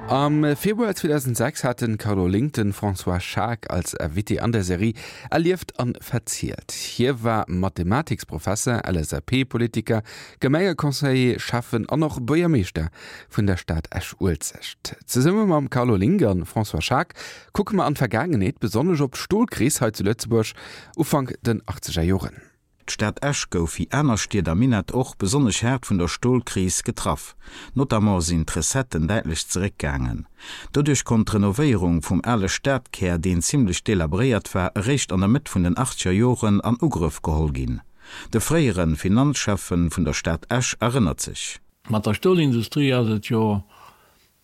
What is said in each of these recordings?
Am Februar 2006 hat den Carlo Link den François Schaack als Invité an der Serie Erlieft an verzielt. Hie war Mathematiksprofesser, LSAP-Politiker, Gemengeconseiller, Schäffen an och Buergermeeschter vun der Stad Esch-Uelzecht. Zesumme mam Carlo Link an François Schaack kucke mer an d'Vergaangenheet, besonnesch op d'Stolkris hei zu Lëtzebuerg Ufank den achtzeger Joren. D'Stad Esch gouf, wéi aner Stied am Minett och, besonnesch haart vun der Stolkris getraff. Notamment sinn d'Recetten däitlech zeréckgaangen. Doduerch konnt d'Renovéierung vum ale Stadkär, deen zimmlech delabréiert war, eréischt an der Mëtt vun den achtzeger Joren an Ugrëff geholl ginn. De fréiere Finanzschäffe vun der Stad Esch erënnert sech. Mat der Stolindustrie ass et jo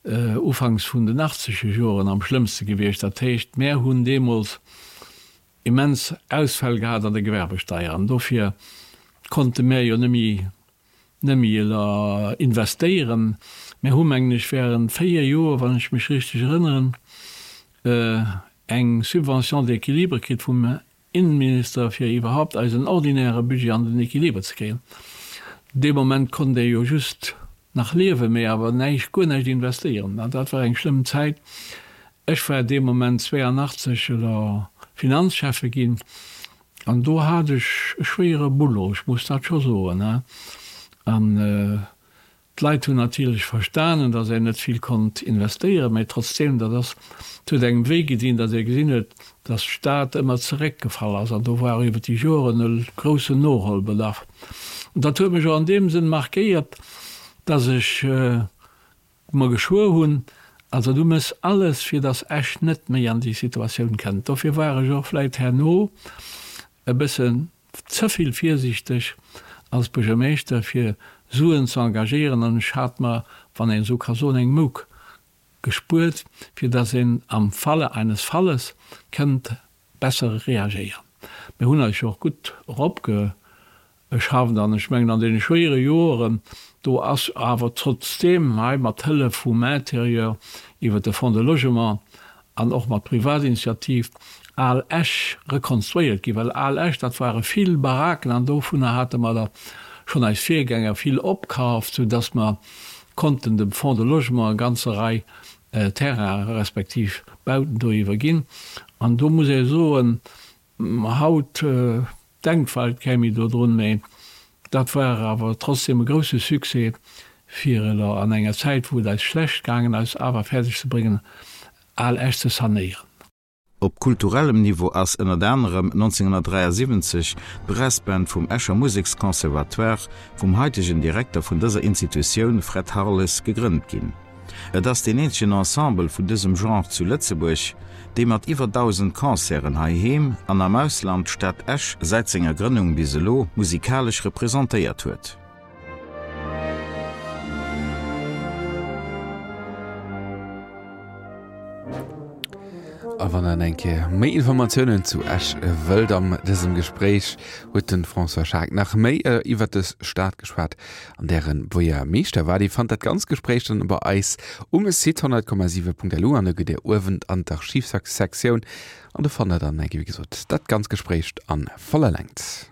ufanks vun den achtzeger Joren am schlëmmste gewiescht. Dat heescht, mär hunn deemools immens Ausfäll gehat an der Gewerbesteier an dofir konnte mär jo nëmme nëmme investéieren. Mär hu mengen ech während 4 Joer, wann ech mech richteg erënneren, eng Subvention d'équilibre kritt vum Innenminister fir iwwerhaupt eisen ordinäre Budget an den Équilibre ze kréien. Dee Moment konnt ee jo just nach liewen, mee awer näischt, guer näischt investéieren. An dat war eng schlëmm Zäit. Ech war dee Moment 82 elo Finanzschäffe ginn an do hat ech e schwéiere Boulot, ech muss dat scho soen. An d'Leit hunn natierlech verstanen, datt een net vill konnt investéieren, mä trotzdeem, dat ass, et huet engem wéi gedinn, datt ee gesinn huet, datt d'Stad ëmmer zeréckgefall ass an do war iwwer déi Joren e groussen Noholbedarf. An dat huet mech och an deem Sënn markéiert, datt ech mer geschwuer hunn, also du méchs alles, fir datt Esch net méi an déi Situatioun kënnt. Dofir war ech och vläit herno e bëssen ze vill virsiichteg als Buergermeeschter, fir Suen ze engagéieren an ech hat mer, wann een esou ka soen, eng Mouk gespuert, fir datt een am Falle eines Falles kënnt besser reagéieren. Mir hunn eis jo och gutt eropge Ech hafen an ech mengen an deene schwéiere Joeren, do ass awer trotzdeem hei mat Hëllef vum Intérieur iwwert de Fonds de Logement an och mat Privatinitiativ Al Esch rekonstruéiert ginn, well Al Esch, dat ware vill Baraken an dovunner hate mer der schonn eis Virgänger vill opkaaft, soudass mer konnten dem Fonds de Logement e ganze Rei Terrainen respektiv Bauten do iwwerginn. An do muss ee soen, Haut denkt vläicht kee méi dodrun, mee dat war awer trotzdem e grousse Succès, fir elo an enger Zäit, wou et eis schlecht gaangen ass, awer fäerdeg ze bréngen, Al Esch ze sanéieren. Op kulturellem Niveau ass ënnert anerem 1973 d'Brassband vum Escher Museksconservatoire vum haitegen Direkter vun dëser Institutioun Fred Harles gegrënnt ginn. Et ass deen eenzegen Ensemble vun dësem Genre zu Lëtzebuerg, dee mat iwwer 1.000 Concerten heiheem an am Ausland d'Stad Esch säit senger Grënnung bis elo musikalesch representéiert huet. A wann der eng Kéier méi Informatiounen zu Esch wëllt, am dësem Gespréich huet de François Schaack nach méi iwwer dës Stad geschwat, an där en Buergermeeschter war. Dir fannt dat ganzt Gespréich dann bei eis um Site 100,7.lu an da gitt Dir uewen an d'Archivsektioun an do fannt der dann, wéi gesot, dat ganzt Gespréich an voller Längt.